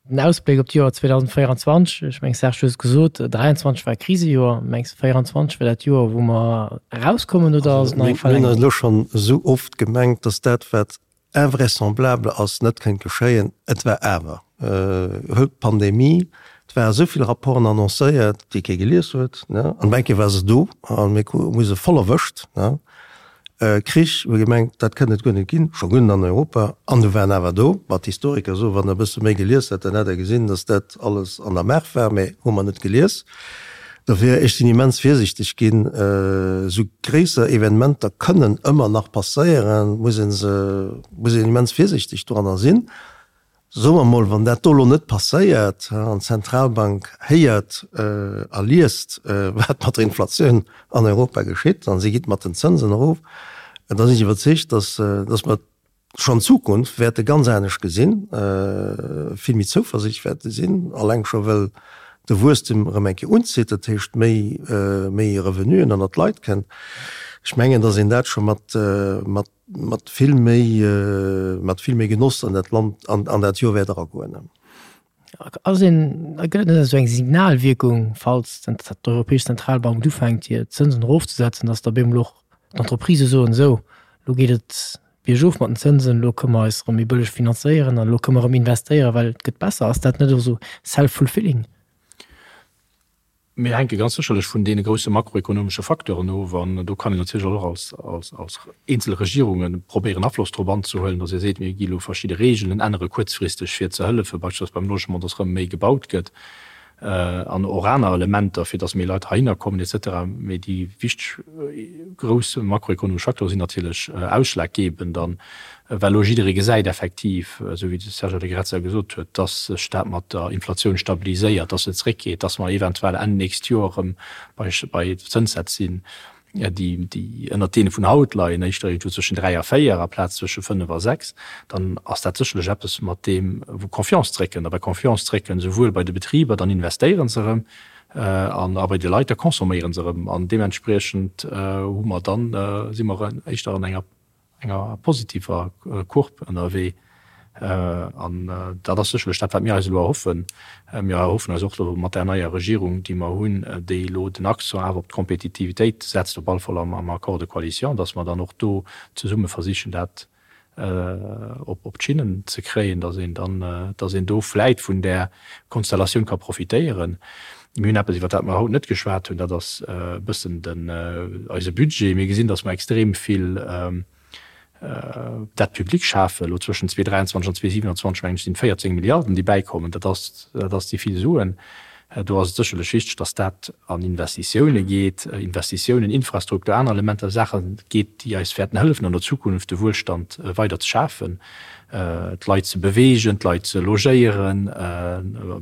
Den Ausbléck op d'Joer 2024, ech meng Serge, du hues et gesot, 23 war e Krisejoer, mengs de 24 wär dat Joer, wou mer erauskommen oder ass et nach eng Verlängerung? Mir hunn elo schonn esou oft gemengt, dass dat, wat Invraisemblable ass, net kënnt geschéien. Et war awer, huelt d'Pandemie, et ware esou vill Rapporten annoncéiert, déi kee gelies huet, ne, an op eng Kéier war se do a mir hu se voll erwëscht, ne. Krich, hu gemengt, dat kënnt et guer net ginn, scho guer net an Europa, an du war en awer do. Ma d'Historiker soen, wann der e bësse méi gelies hätt, dann hätt der gesinn, datt dat alles an der Maach war, mä hu mer net gelies. Dofir, ech sinn immens virsichteg ginn. Esou gréisser Evenementer kënnen ëmmer nach passéieren, muss ee se, muss een immens virsichteg doranner sinn. Soe mer emol, wann dat do elo net passéiert an d'Zentralbank héiert a liest, wat mat der Inflatioun an Europa geschitt, a si geet mat den Zënsen erof, da sinn ech iwwerzeegt, datt, datt mer schonn d'Zukunft wäerte ganz anescht gesinn, vill méi zouversiichtlech wäerte sinn, alleng scho well de Wuesstem erëm eng Kéier unzitt, dat heescht méi, méi Revenuen ënnert d'Leit kënnt. Ech mengen, datt een dat scho mat, mat, mat vill méi, mat vill méi Genoss an dat Land, an, an dat Joer wäert eragoen. Ass een, gëtt et net esou eng Signalwierkung, falls d'Europäesch Zentralbank ufänkt hir Zënsen erofzesetzen, datt da bemol och d'Entreprisë soen, esou, elo geet et biergof mat den Zënsen, elo kënne mer eis erëm méi bëlleg finanzéieren an elo kënne mer erëm investéieren, well et gëtt besser. Ass dat net och esou self-fulfilling? Mir hänke ganz sécherlech vun deene grousse makroekonomesche Facteuren of an do kann een natierlech och als, als, als eenzel Regierunge probéieren Afloss drop anzehuelen, datt ee seet, mir gi elo verschidde Regeln ännere kuerzfristeg fir ze hëllefen, beispillsweis beim Logement, datt erëm méi gebaut gëtt an och aner Elementer, fir datt méi Leit heihinner kommen et cetera. Mee déi wichteg grouss makroekonomesch Facteure sinn natierlech ausschlaggebend an Well elo jidderee gesäit effektiv, esou wéi de Serge Allegrezza gesot huet, dass sech dat mat der Inflatioun stabiliséiert, dass se zréckgeet, dass mer eventuell Enn nächst Joer erëm bei bei Zënssätz sinn, déi déi ënnert deene vun haut leien, éischter iergendwou zwëschen 3 a 4 aplaz zwësche 5 a 6, dann ass dat sécherlech eppes, mat deem wou Confiance zréckkënnt. A bei Confiance zréckkënnt esouwuel bei de Betriber, dann investéiere se erëm, an a bei de Leit, da consomméiere se erëm. An deementspriechend hu mer dann, si mer éischter an enger enger positiver Courbe ënnerwee. An dat ass sécherlech dat, wat mir eis elo erhoffen. Mir erhoffen eis och elo mat där neier Regierung, déi mer hunn, déi elo den Accent awer op d'Kompetitivitéit setzt, op alle Fall am Accord de coalition, dass mer dann och do zesumme versichen, dat op d'Schinnen ze kréien, dass een dann, dass een do vläit vun där Konstellatioun ka profitéieren. Mir hunn eppes, iwwer dat mer haut net geschwat hunn, dat ass e bëssen den, eise Budget. Mir gesinn, datt mer extrem vill Dette publique schafen. Elo zwëschen 2023 an 2027, mengen ech, sinn et 14 Milliarden, déi bäikommen. Dat ass, dat ass déi vill Suen. Do ass et sécherlech wichteg, dass dat an Investitioune geet, Investitiounen, Infrastruktur, aner Elementer, Saache geet, déi eis wäerten hëllefen an der Zukunft de Wuelstand weider ze schafen, d'Leit ze beweegen, d'Leit ze logéieren,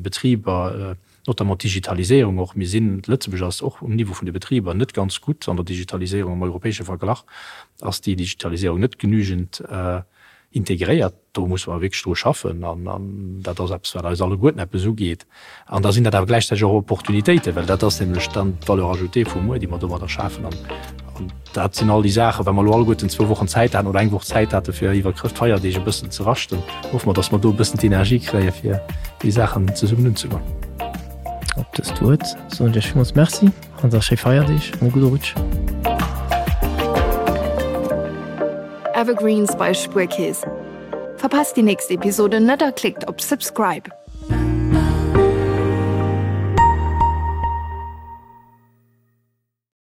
Betriber, notamment d'Digitaliséierung och. Mir sinn, Lëtzebuerg ass och um Niveau vun de Betriber net ganz gutt an der Digitaliséierung. Am europäesche Verglach ass déi Digitaliséierung net genügend integréiert. Do musse mer wierklech dru schaffen an dat ass eppes, wat eis alleguerten eppes ugeet. An da sinn dat awer gläichzäiteg och Opportunitéiten, well dat ass nämlech dann d'Valeur ajoutée vu muer, déi mer domadder schafen. An dat sinn all déi Saachen, wa mer elo alleguerten zwou Wochen Zäit haten oder eng Woch Zäit hate fir iwwer Chrëschtfeierdeeg e bëssen ze raschten, hoffe mer, datt mer do e bëssen d'Energie kréie fir déi Saachen zesummen unzegoen. Op dëst Wuert soen ech Iech villmools Merci. An da schéi Feierdeeg an e gudde Rutsch. Evergreens bei Spuerkeess. Verpasst déi nächst Episode net a klickt op Subscribe.